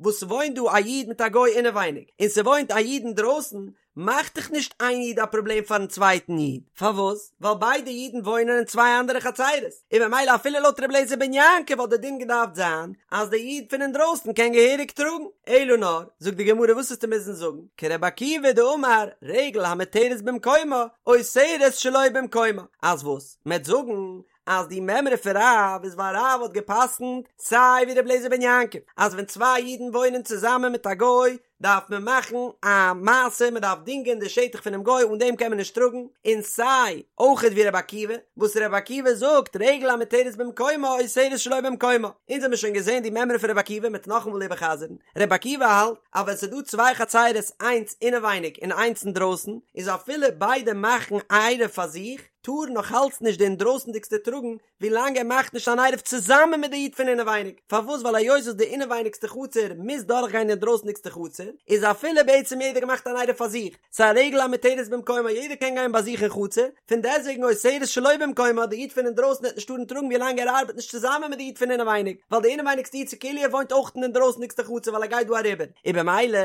וואס ס'וואוינט דא א איד מיט א גוי אינעווייניג, און ס'וואוינט א איד אינדרויסן, מאכט דאך נישט איין איד א פראבלעם פארן צווייטן איד, פארוואס? ווייל ביידע אידן וואוינען אין צוויי אנדערע חצרות, און ממילא אפילו לויט ר' אליעזר בן יעקב וואלט די דין געדארפט זיין אז די איד פון אינדרויסן קען געהעריג טראגן, אלא נאר, זאגט די גמרא וואס וועסטו מוזן זאגן, כרבי עקיבא דאמר רגל המותרת במקומה אוסרת שלא במקומה, אז וואס? מ'עט זאגן אז די מימרא פון רב איז ווייל רב האט גע'פסק'נט סיי ווי ר' אליעזר בן יעקב אז ווען צוויי אידן וואוינען צוזאמען מיט א גוי דארף מען מאכן א מעשה מען דארף דינגען די שטח פונעם גוי אן דעם קען מען נישט טראגן, און סיי אויכעט ווי רבי עקיבא וואס רבי עקיבא זאגט רגל המותרת במקומה אוסרת שלא במקומה, אונז האמיר שוין געזען די מימרא פון רבי עקיבא מ'עט נאכאמאל איבערחזר'ן, רבי עקיבא האלט אז ווען ס'איז דא צוויי חצירות איינס אינעווייניג און איינס אינדרויסן איז אפילו ביידע מאכן עירוב פאר זיך טאר נאך אלץ נישט די אינדרויסנדיגסטע טראגן ווילאנג ער מאכט נישט אן עירוב צוזאמען מיט די איד פון אינעווייניג, פארוואס ווייל היות וואס די אינעווייניגסטע חצר מוז דורכגיין די אינדרויסנדיגסטע חצר, איז אפילו בעצם יעדער געמאכט אן עירוב פאר זיך, ס'איז א רגל המותרת במקומה יעדער קען גיין ביי זיך אין חצר, פון דעסטוועגן אוסרת שלא במקומה די איד פון אינדרויסן וועט נישט טארן טראגן ווילאנג ער ארבעט נישט צוזאמען מיט די איד פון אינעווייניג, ווייל די אינעווייניגסטע איד ס'כאילו ער וואוינט אויך אין די אינדרויסנדיגסטע חצר ווייל ער גייט דא אריבער, און במילא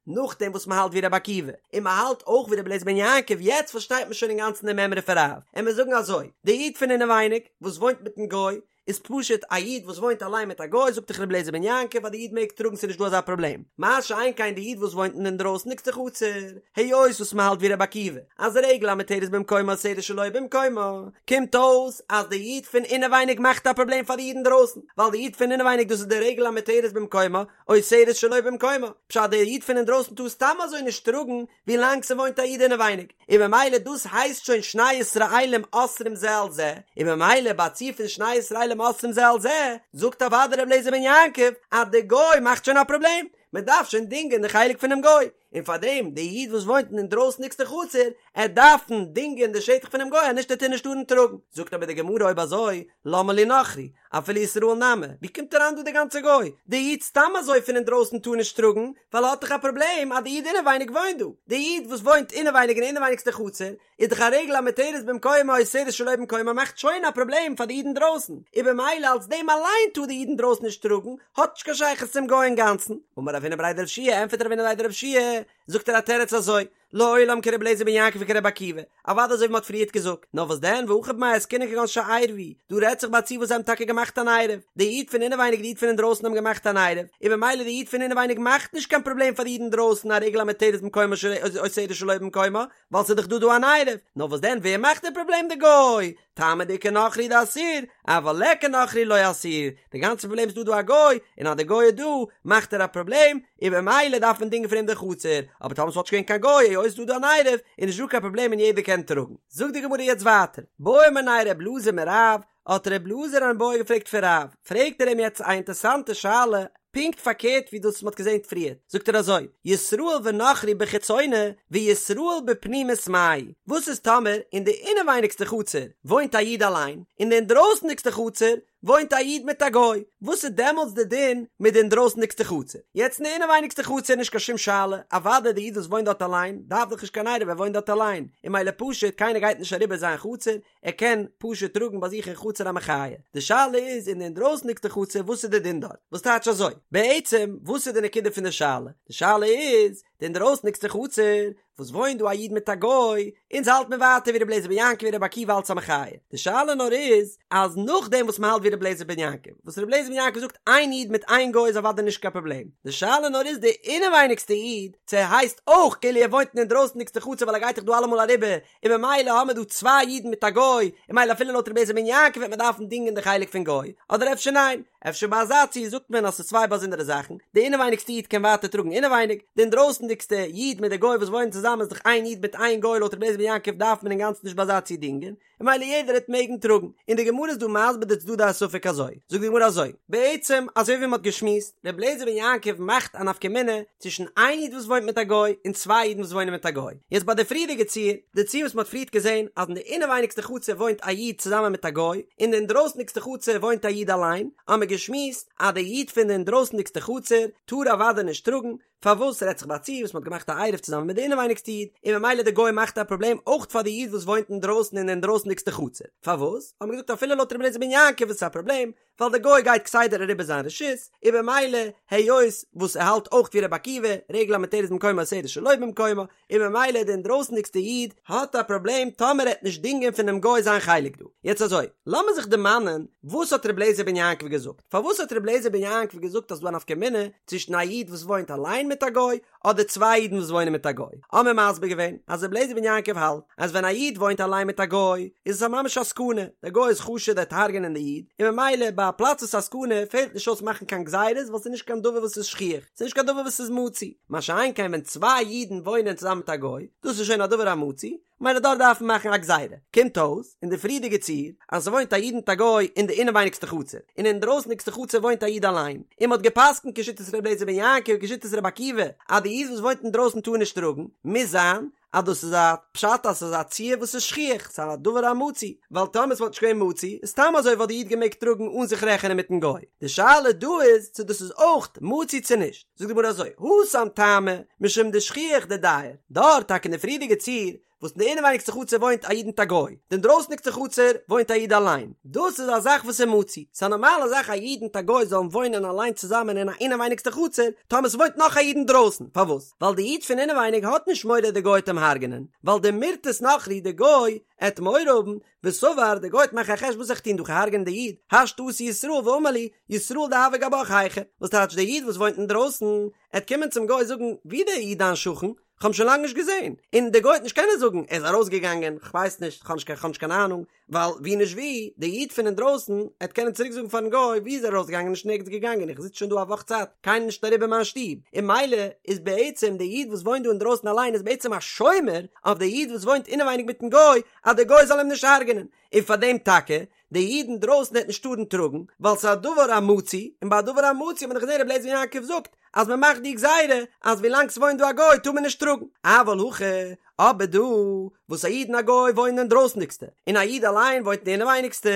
נאכדעם וואס מ'האלט ווי רבי עקיבא, און מ'האלט אויך ווי רבי אליעזר בן יעקב, יעצט פארשטייט מען שוין אינגאנצן די מימרא פון רב, און מיר זאגן אזוי, די איד פון אינעווייניג וואס וואוינט מיטן גוי, איז פשוט א איד וואס וואוינט אליין מיט א גוי, זאגט דאך רבי אליעזר בן יעקב אז די איד מעג טראגן ס'איז נישט דא אזא פראבלעם, מה שאין כן די איד וואס וואוינט אין די אינדרויסנדיגסטע חצר, היות וואס מ'האלט ווי רבי עקיבא, אז רגל המותרת במקומה אוסרת שלא במקומה, קומט אויס אז די איד פון אינעווייניג מאכט א פראבלעם פאר די איד אינדרויסן, ווייל די איד פון אינעווייניג דאס איז די רגל המותרת במקומה, אוסרת שלא במקומה, פשט דער איד פון אינדרויסן טאר סתם אזוי נישט טראגן ווי לאנג ס'וואוינט א איד אינעווייניג, און ממילא דאס הייסט שוין שני ישראלים אוסרים זה על זה, און ממילא ביי א ציור פון שני ישראלים אוסרים זה על זה, זאגט אוודאי ר' אליעזר בן יעקב אז די גוי מאכט שוין א פראבלעם, מ'דארף שוין דינגען די חלק פונעם גוי, און פארדעם די איד וואס וואוינט אין אינדרויסנדיגסטע חצר, ער דארפן דינגען די שטח פונעם גוי אז נישט ער טאר נישט טארן טראגן, זאגט אבער די גמרא אויב אזוי למה לי נכרי, אפילו ישראל נמי, ווי קומט אריין דא די גאנצע גוי? די איד סתם אזוי פון אינדרויסן טאר נישט טראגן, ווייל ער האט דאך א פראבלעם אז די איד אינעווייניג וואוינט דא, די איד וואס וואוינט אינעווייניג אין אינעווייניגסטע חצר, איז דאך א רגל המותרת במקומה אוסרת שלא במקומה מאכט שוין א פראבלעם פאר די איד אינדרויסן, און במילא אלס דעם אליין טאר די איד אינדרויסן נישט טראגן, האט נישט קיין שייכות צום גוי אינגאנצן. אמר רב הונא בריה דרב יהושע, ענטפערט רב הונא בריה דרב יהושע, זאגט ער א תירוץ אזוי, לעולם כר' אליעזר בן יעקב וכר' עקיבא, אוודאי אזוי ווי מ'האט פריערט געזאגט, נאר וואס דען והכא במאי עסקינן כגון שעירבו, דא רעדט זיך ביי א ציור וואס זיי האבן טאקע געמאכט אן עירוב, די איד פון אינעווייניג די איד פון אינדרויסן האבן געמאכט אן עירוב, און במילא די איד פון אינעווייניג מאכט נישט קיין פראבלעם פאר די איד אינדרויסן א רגל המותרת במקומה אוסרת שלא במקומה, ווייל ס'איז דאך דא דא אן עירוב, נאר וואס דען ווער מאכט די פראבלעם די גוי, טעמא דאיכא נכרי דאסיר, אבל ליכא נכרי לא אסיר, די גאנצע פראבלעם איז דא דא א גוי, און אז די גוי איז דא מאכט ער א פראבלעם, און במילא דארף מען דינגען פון אים די חצר, אבער טאמער ס'וואלט נישט געווען קיין גוי היות ס'איז דא דא אן עירוב, איז נישט דא קיין פראבלעם און יעדער קען טראגן. זאגט די גמרא יעצט ווייטער, בעא מיניה ר' אלעזר מרב, האט ר' אלעזר אן בעיא געפרעגט פון רב, פרעגט ער אים יעצט א אינטערסאנטע שאלה, פונקט פארקערט ווי דאס וואס מ'האט געזען פריער, זאגט ער אזוי, ישראל ונכרי בחיצונה וישראל בפנימית מאי, וואס איז טאמער אין די אינעווייניגסטע חצר וואוינט א איד אליין, אין די אינדרויסנדיגסטע חצר וואוינט א איד מיט א גוי, וואס איז דעמאלטס די דין מיט די אינדרויסנדיגסטע חצר? יעצט אין די אינעווייניגסטע חצר איז נישט קיין שום שאלה, אוודאי די איד וואס וואוינט דארט אליין דארף דאך נישט קיין עירוב ער וואוינט דארט אליין, און ממילא פשוט קיינער גייט נישט אריבער זיין חצר, ער קען פשוט טראגן ביי זיך אין חצר א מחיה. די שאלה איז אין די אינדרויסנדיגסטע חצר וואס איז די דין דארט? וואס טייטש אזוי? בעצם וואס איז די נקודה פון די שאלה? די שאלה איז. די אינדרויסנדיגסטע חצר, וואס וואוינט דא א איד מיט א גוי, אונז האלט מיר ווייטער ווי רבי אליעזר בן יעקב ווי רבי עקיבא אלץ א מחיה, די שאלה נאר איז אז נאכדעם וואס מ'האלט ווי רבי אליעזר בן יעקב, וואס רבי אליעזר בן יעקב זאגט איין איד מיט איין גוי איז אוודאי נישט קיין פראבלעם, די שאלה נאר איז די אינעווייניגסטע איד, צו ער הייסט אויך כאילו ער וואוינט אין אינדרויסנדיגסטע חצר ווייל ער גייט דאך דא אלעמאל אריבער, און ממילא האמיר דא צוויי אידן מיט א גוי, און ממילא אפילו לויט רבי אליעזר בן יעקב וועט מען דארפן דינגען די חלק פון גוי, אדער אפשר ניין, אפשר ביי אזא ציור זאגט מען אז ס'איז צוויי באזונדערע זאכן, די אינעווייניגסטע איד קען ווייטער טראגן אינעווייניג, די אינדרויסנדיגסטע איד מיט די גוי וואס וואוינען צוזאמען איז דאך איין איד מיט איין גוי לויט רבי אליעזר בן יעקב דארף מען אינגאנצן נישט ביי אזא ציור דינגען, און ממילא יעדער העט מעגן טראגן, און די גמרא איז דא מסביר די צדדי הספק אזוי, זאגט די גמרא אזוי, בעצם אזוי ווי מען האט געשמועסט, רבי אליעזר בן יעקב מאכט א נפקא מינה צווישן איין איד וואס וואוינט מיט א גוי און צוויי אידן וואס וואוינען מיט א גוי, יעצט ביי די פריערדיגע ציור, די ציור וואס מען האט פריערט געזען אז אין די אינעווייניגסטע חצר וואוינט א איד צוזאמען מיט א גוי, אין די אינדרויסנדיגסטע חצר וואוינט א איד אליין, האמער געשמועסט אז די איד פון די אינדרויסנדיגסטע חצר טאר אוודאי נישט טראגן, פארוואס רעדט זיך ביי א ציור וואס מ'האט געמאכט א עירוב צוזאמען מיט די אינעווייניגסטע איד, און ממילא די גוי מאכט א פראבלעם אויך פאר די איד וואס וואוינט אינדרויסן אין די אינדרויסנדיגסטע חצר, פארוואס? האט מען געזאגט אפילו לויט רבי אליעזר בן יעקב איז עס א פראבלעם, ווייל די גוי גייט כסדר אריבער זיין רשות, און ממילא היות וואס ער האלט אויך ווי רבי עקיבא, רגל המותרת במקומה אוסרת שלא במקומה, און ממילא די אינדרויסנדיגסטע איד האט א פראבלעם טאמער ער העט נישט דינגען פונעם גוי זיין חלק דא. יעצט אזוי, לאמיר זיך דערמאנען וואס האט רבי אליעזר בן יעקב געזאגט? פארוואס האט רבי אליעזר בן יעקב געזאגט אז ס'דא א נפקא מינה צווישן א איד וואס וואוינט אליין מיט א גוי אדער צוויי אידן וואס וואוינען מיט א גוי? האמיר מסביר געווען אז רבי אליעזר בן יעקב האלט אז ווען א איד וואוינט אליין מיט א גוי איז עס א ממש א סכנה, דער גוי איז חשוד ער וועט הרג'ענען די איד, און ממילא ביי א פלאץ וואס איז א סכנה פעלט נישט אויס מאכן קיין גזירות ווייל ס'איז נישט קיין דבר וואס איז שכיח, ס'איז נישט קיין דבר וואס איז מצוי, מה שאין כן ווען צוויי אידן וואוינען צוזאמען מיט א גוי, דאס איז שוין א דבר המצוי, ממילא דארט דארף מען מאכן א גזירה. קומט אויס, אין די פריערדיגע ציור, אז ס'וואוינט א איד מיט א גוי אין די אינעווייניגסטע חצר, און אינדרויסנדיגסטע חצר וואוינט א איד אליין, און מ'האט גע'פסק'נט כשיטת ר' אליעזר בן יעקב כשיטת ר' עקיבא, אז די איד וואס וואוינט אינדרויסן טאר נישט טראגן, מוז זיין אז דאס איז א פשט אז ס'איז א ציור וואס איז שכיח, ס'איז א דבר המצוי, ווייל טאמער ס'וואלט נישט געווען מצוי, איז סתם אזוי וואלט די איד געמעגט טראגן אן זיך רעכענען מיטן גוי. די שאלה דא איז צו דאס איז אויך מצוי צו נישט. זאגט די גמרא אזוי, התם טעמא, משום דשכיח דדייר, דארט טאקע אין די פריערדיגע ציור, וואס אין די אינעווייניגסטע חצר וואוינט א איד מיט א גוי, די אינדרויסניגסטע חצר וואוינט א איד אליין, דאס איז א זאך וואס איז מצוי, ס'איז א נארמאלע זאך א איד מיט א גוי זאלן וואוינען אליין צוזאמען אין א אינעווייניגסטע חצר, טאמער ס'וואוינט נאך א איד אינדרויסן, פארוואס? ווייל די איד פון אינעווייניג האט נישט מורא די גוי וועט אים הרג'נען, ווייל דמירתת נכרי די גוי עט מורא האבן, וסבר די גוי וועט מאכן א חשבון וואס זאל איך טון דא כ'הרג'ענען די איד, השתא אתא ישראל ואמר לי, ישראל דהוה גבך היכא, וואס טייטש די איד וואס וואוינט אינדרויסן, עט קומען צום גוי זאגן, ווי דער איד דיין שכן? כ'האב אים שוין לאנג נישט געזען, און די גוי וועט נישט קענען זאגן ער איז ארויסגעגאנגען, כ'ווייס נישט, כ'האב נישט קיין קיין אהנונג, ווייל ווי נישט ווי, די איד פון אינדרויסן עט קענען צוריק זאגן פארן גוי ווי איז ער ארויסגעגאנגען נישט נערגעץ געגאנגען איך זיץ שוין דא א וואך צייט קיינער נישט אריבער מיין שטוב, און ממילא איז בעצם די איד וואס וואוינט דא אינדרויסן אליין איז בעצם א שומר אויף די איד וואס וואוינט אינעווייניג מיטן גוי אז די גוי זאל אים נישט הרג'נען, און פאר דעם טאקע די איד אינדרויסן העט נישט טארן טראגן, ווייל ס'איז א דבר המצוי, און ביי א דבר המצוי האט מען דאך געזען רבי אליעזר בן יעקב זאגט אז מען מאכט די גזירה אז ווילאנג ס'וואוינט דא א גוי טאר מען נישט טראגן, אבל הכא, אבער דא וואס א איד און א גוי וואוינען אינדרויסנדיגסטע, און א איד אליין וואוינט אין די אינעווייניגסטע,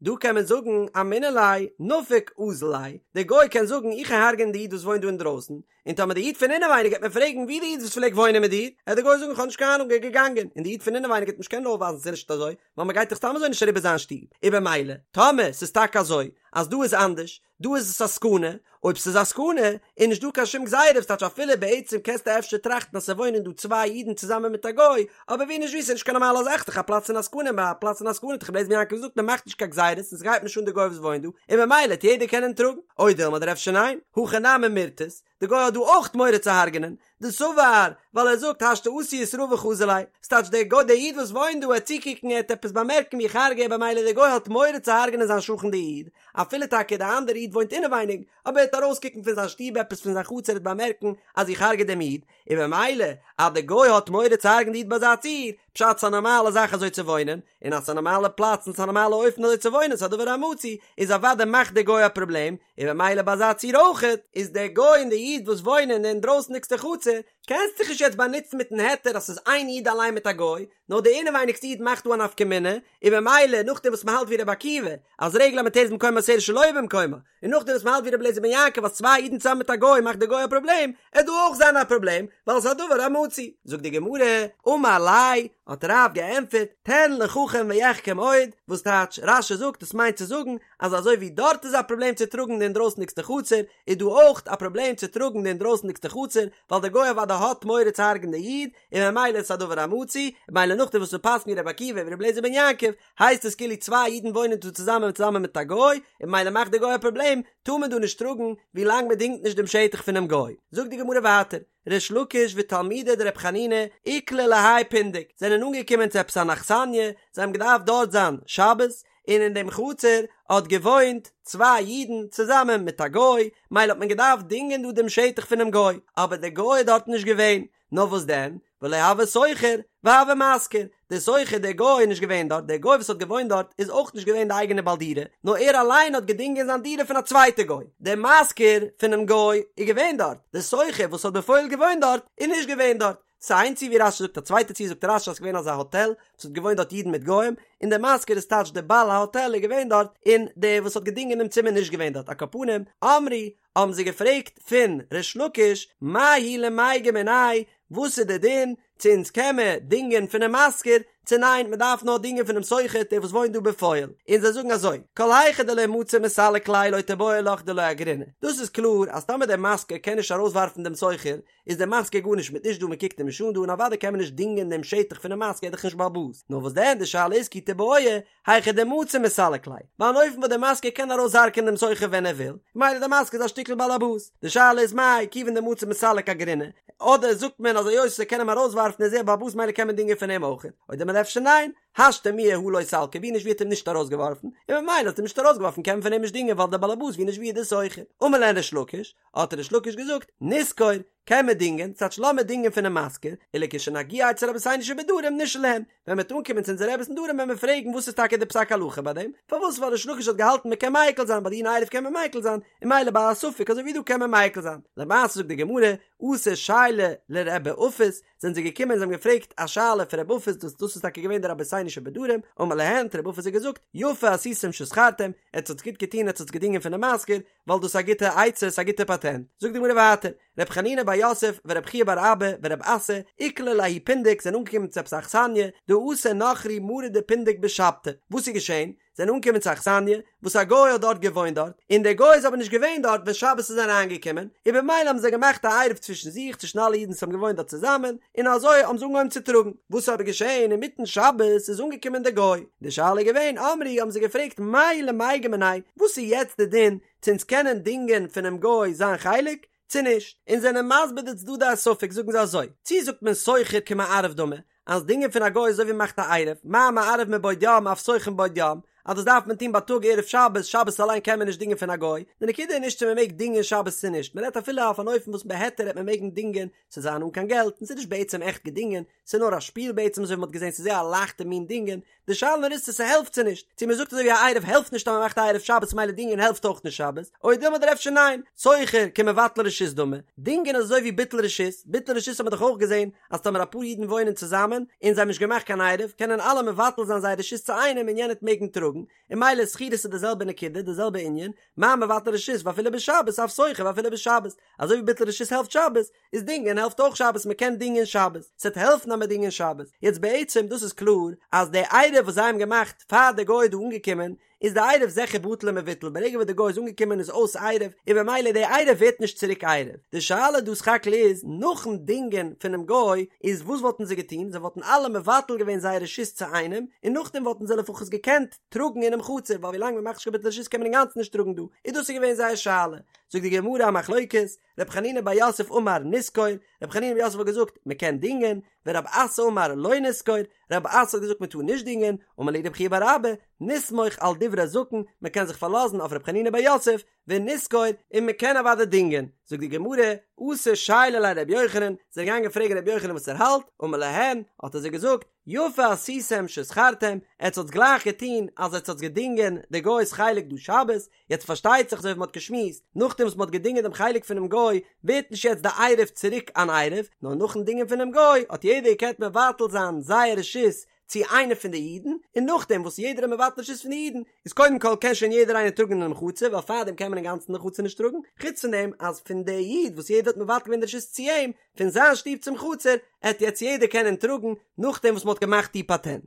דא קען מען זאגן אמינא ליה נפיק אזיל ליה, דער גוי קען זאגן איך גיי הרג'ענען די איד וואס וואוינט דא אינדרויסן, און טאמער די איד פון אינעווייניג גייט מיר פרעגן ווי די איד וואס פלעגט וואוינען מיט דיר, עט די גוי זאגן כ'האב נישט קיין אהנונג ער איז געגאנגען, און די איד פון אינעווייניג גייט נישט קענען אויפווייזן ס'איז נישט אזוי, ווייל מ'גייט דאך סתם אזוי נישט אריבער זיין שטוב, און במילא, טאמער ס'איז טאקע אזוי אז דא איז אנדערש, דא איז עס א סכנה, אויב ס'איז א סכנה, איז נישט דא קיין שום גזירה, וואס טייטש אפילו בעצם קענסטו אפשר טראכטן אז ס'וואוינען דא צוויי אידן צוזאמען מיט א גוי, אבער ווי נישט ווי ס'איז נישט קיין נארמאלע זאך, ס'דאך א פלאץ אין א סכנה, ביי א פלאץ אין א סכנה האט דאך רבי אליעזר בן יעקב געזאגט מ'מאכט נישט קיין גזירות און ס'גייט נישט אן די גוי וואס וואוינט דא, און במילא העט יעדער קענען טראגן, או דילמא אדער אפשר ניין, הכא נמי מירתת, די גוי האט דא אויך מורא צו הרג'נען, דסבר, ווייל ער זאגט השתא אתי ישראל וחזי לי, ס'טייטש דער גוי דער איד וואס וואוינט דא עט צוקוקן ער עט עפעס באמערקן ווי איך הרג'ע במילא דער גוי האט מורא צו הרג'נען זיין שכן די איד, אפילו טאקע די אנדערע איד וואוינט אינעווייניג, אבער ער עט ארויסקוקן פון זיין שטוב עפעס פון זיין חצר עט באמערקן אז איך הרג'ע דעם איד, און במילא אז די גוי האט מורא צו הרג'ן די איד ביי אזא ציור, פשט ס'א נארמאלע זאך אזוי צו וואוינען, און אז ס'א נארמאלע פלאץ און ס'א נארמאלע אופן אזוי צו וואוינען ס'א דבר המצוי, איז אוודאי מאכט די גוי א פראבלעם, און במילא ביי אזא ציור אויכעט, איז דער גוי און די איד וואס וואוינען אין די אינדרויסנדיגסטע חצר, קענסט זיך נישט יעצט באנוצן מיטן היתר אז ס'איז איין איד אליין מיט א גוי, נאר די אינעווייניגסטע איד מאכט דא א נפקא מינה, און במילא נאכדעם וואס מ'האלט ווי רבי עקיבא, אז רגל המותרת במקומה אוסרת שלא במקומה, און נאכדעם וואס מ'האלט ווי רבי אליעזר בן יעקב אז צוויי אידן צוזאמען מיט א גוי מאכט די גוי א פראבלעם, עט דא אויך זיין א פראבלעם, ווייל ס'איז א דבר המצוי. זאגט די גמרא, אמר ליה, האט רב געענטפערט, תן לחכם ויחכם עוד, וואס טייטש, רש"י זאגט עס מיינט צו זאגן, אז אזוי ווי דארט איז א פראבלעם צו טראגן די אינדרויסנדיגסטע חצר, איז דא אויך א פראבלעם צו טראגן די אינדרויסנדיגסטע חצר, ווייל די גוי אוודאי. אוודאי האט מורא צו הרג'ן די איד, און ממילא איז עס א דבר המצוי, ממילא נאכדעם וואס מ'פסק'נט ווי רבי עקיבא און ווי רבי אליעזר בן יעקב, הייסט עס כאילו צוויי אידן וואוינען דא צוזאמען צוזאמען מיט א גוי, און ממילא מאכט די גוי א פראבלעם, טאר מען דא נישט טראגן ווי לאנג מען דינגט נישט דעם שטח פונעם גוי. זאגט די גמרא ווייטער, ריש לקיש ותלמידיה דרב חנינא איקלעו להאי פונדק, זענען אנגעקומען צו עפעס אן אכסניא, זיי האבן געדארפט דארט זיין שבת, און אין דעם חצר האט געוואוינט צוויי אידן צוזאמען מיט א גוי, מילא האט מען געדארפט דינגען דא דעם שטח פונעם גוי, אבער דער גוי איז דארט נישט געווען, נאר וואס דען, ולא הוה שוכר והוה משכיר, דער שוכר דער גוי איז נישט געווען דארט, דער גוי וואס האט געוואוינט דארט איז אויך נישט געווען די אייגענע בעל דירה, נאר ער אליין האט געדינגען זיין דירה פון א צווייטע גוי, דער משכיר פונעם גוי איז געווען דארט, דער שוכר וואס האט בפועל געוואוינט דארט איז נישט געווען דארט. ס'איז איין ציור ווי רש"י זאגט א צווייטע ציור זאגט רש"י אז ס'איז געווען אזא האטעל וואס האט געוואוינט דארט אידן מיט גוים, און דער משכיר איז טייטש דער בעל ההאטעל איז געווען דארט, און דער וואס האט געדינגען דעם צימער נישט געווען דארט, על כל פנים, אמרי, האבן זיי געפרעגט פון ריש לקיש, מהו למיגר מיניה, וואס איז די דין, צו אונז קען מען דינגען פונעם משכיר, צו ניין מען דארף נאר דינגען פונעם שוכר דער וואס וואוינט דא בפועל, און זיי זאגן אזוי, כל היכא דלא מצי מסלק ליה לא תיבעי לך דלא אגריניה, דאס איז קלאר אז טאמער דער משכיר קען נישט ארויסווארפן דעם שוכר, איז דער משכיר גארנישט מיט נישט דא מען קוקט אים נישט אן דא און אוודאי קען מען נישט דינגען דעם שטח פונעם משכיר ער איז דאך נישט בעל הבית, נאר וואס דען די שאלה איז כי תיבעי היכא דמצי מסלק ליה, ביי אן אופן וואס דער משכיר קען ארויסהרג'ענען דעם שוכר ווען ער וויל, ממילא דער משכיר איז א שטיקל בעל הבית, די שאלה איז מאי כיוון דמצי מסלק אגריניה, אדער זאגט מען אז היות ער קען אים ארויסווארפן איז ער בעל הבית ממילא קען מען דינגען פון אים אויך, או דילמא אפשר ניין, השתא מיהא הא לא סלקיה ווי נישט ווי האט אים נישט ארויסגעווארפן, און ממילא האט אים נישט ארויסגעווארפן קען מען פון אים נישט דינגען ווייל דער בעל הבית ווי נישט ווי איז דער שוכר, אמר להן ריש לקיש, האט ריש לקיש געזאגט, נשכור, קען מען דינגען, ס'טייטש לאמיר דינגען פונעם משכיר, ולכשנגיע אצל רבותינו שבדרום נשאל להם, ווען מ'וועט אנקומען צו אונזערע רעבעס אין דרום וועלן מיר פרעגן וואס איז טאקע די פסק הלכה ביי דעם, פארוואס ווייל ריש לקיש האט געהאלטן מ'קען מיקל זיין ביי דיני עירוב קען מען מיקל זיין, און ממילא ביי א ספק אזוי ווי דא קען מען מיקל זיין. למעשה זאגט די גמרא, אתו שיילו לרבי אפס, זענען זיי געקומען און זיי האבן געפרעגט א שאלה פון רבי אפס, דאס דאס איז טאקע געווען די רבותינו שבדרום, אמר להן, האט רבי אפס זיי געזאגט, יפה עשיתם ששכרתם, עטס האטס גוט געטון עטס האטס געדינגען פונעם משכיר, ווייל דאס איז א גוטע עצה, ס'איז א גוטע פאטענט. זאגט די גמרא ווייטער, ר' חנינא בר יוסף ור' חייא בר אבא ור' אסי, איקלעו לההוא פונדק זענען אנגעקומען צו עפעס א אכסניא, דאתא נכרי מרי דפונדק בשבתא. וואס איז געשען? זענען אנגעקומען צו א אכסניא, וואס א גוי האט דארט געוואוינט דארט, און דער גוי איז אבער נישט געווען דארט ווען שבת איז אריינגעקומען, און במילא האבן זיי געמאכט א עירוב צווישן זיך, צווישן אלע אידן וואס האבן געוואוינט דארט צוזאמען, און אזוי האבן זיי אנגעהויבן צו טראגן. וואס איז אבער געשען אינמיטן שבת איז אנגעקומען דער גוי, די שאלה איז געווען, אמרי האבן זיי געפרעגט מהו למיגר מיניה, וואס איז יעצט די דין, צו אונז קענען דינגען פונעם גוי זיין חלק, צו נישט? און זענען מסביר די צדדי הספק זאגן זיי אזוי, צו זאגט מען שוכר כמערב דמי, אז דינגען פון א גוי איז אזוי ווי מ'מאכט א עירוב, מה מערב מבעוד יום אף שוכר מבעוד יום, אז דאס דארף מען טון בייטאג ערב שבת, שבת אליין קען מען נישט דינגען פון א גוי, די נקודה איז נישט צו מ'מעג דינגען שבת צו נישט, מ'רעדט אפילו אויף אן אופן וואס בהיתר העט מען מעגן דינגען, ס'זאל זיין אן קיין געלט, און ס'איז נישט בעצם עכט געדינגען, ס'איז נאר א שפיל בעצם אזוי ווי מ'האט געזען ס'איז זייער א לייכטע מין דינגען, די שאלה נאר איז צו ס'העלפט צו נישט, צו מ'זאגט אזוי ווי א עירוב העלפט נישט אז מ'מאכט א עירוב שבת מילא דינגען העלפט אויך נישט שבת, או דילמא אדער אפשר ניין, שוכר כמבטל רשות דמי, דינגען איז אזוי ווי ביטול רשות, ביטול רשות האט מען דאך אויך געזען אז טאמער אפאר אידן וואוינען צוזאמען און זיי האבן נישט געמאכט קיין עירוב קענען אלע מבטל זיין זייער רשות צו איינעם און יענער וועט מעגן טראגן, און מילא שכירות איז די זעלבע נקודה די זעלבע ענין, מה מבטל רשות ואפילו בשבת אף שוכר ואפילו בשבת, אזוי ווי ביטול רשות העלפט שבת, איז דינגען העלפט אויך שבת מען קען דינגען שבת, ס'עט העלפן אז מען דינגען שבת, יעצט בעצם דאס איז קלאר אז די עירוב וואס זיי האבן געמאכט פאר די גוי איז דא אנגעקומען איז די עירוב זיכער בטל ומבוטל ברגע וואס די גוי איז אנגעקומען איז אויס עירוב און במילא די עירוב ווערט נישט צוריק עירוב, די שאלה דא סך הכל איז נאכן דינגען פונעם גוי איז וואס וואלטן זיי געטון זיי וואלטן אלע מבטל געווען זייער רשות צו איינעם און נאכדעם וואלטן זיי לפחות געקענט טראגן אינעם חצר ווייל ווילאנג מען מאכט נישט קיין ביטול רשות קען מען אינגאנצן נישט טראגן דא איז דאס איז געווען זייער שאלה זאגט די גמרא א מחלוקת ר' חנינא בר יוסף אמר נשכור, ר' חנינא בר יוסף האט געזאגט מען קען דינגען, ורב אסי אמר לא נשכור, רב אסי האט געזאגט מען טאר נישט דינגען, אמר להו רב חייא בר אבא, נסמוך על דברי זקן, מען קען זיך פארלאזן אויף ר' חנינא בר יוסף, ונשכור, און מען קען אוודאי דינגען. זאגט די גמרא, אתו שיילו ליה לר' יוחנן, זיי זענען געגאנגען פרעגן ר' יוחנן וואס ער האלט, אמר להן, האט ער זיי געזאגט, יפה עשיתם ששכרתם, עטס האטס גלייך געטון אז עטס האטס געדינגען די גוי'ס חלק דא שבת, יעצט פארשטייט זיך אזוי ווי מ'האט געשמועסט, נאכדעם וואס מ'האט געדינגען דעם חלק פונעם גוי, ווערט נישט יעצט די עירוב צוריק אן עירוב, נאר נאכן דינגען פונעם גוי האט יעדער געקענט מבטל זיין זייער רשות צו איינער פון די אידן, און נאכדעם וואס יעדער איז מבטל רשות פון די אידן, איז קודם כל קען שוין יעדער איינער טראגן אינעם חצר, ווייל פארדעם קען מען אינגאנצן אין די חצר נישט טראגן, חוץ פון דעם אז פון די איד וואס יעדער האט מבטל געווען די רשות צו אים, פון זיין שטוב צום חצר, עט יעצט יעדער קענען טראגן, נאכדעם וואס מ'האט געמאכט די פאטענט.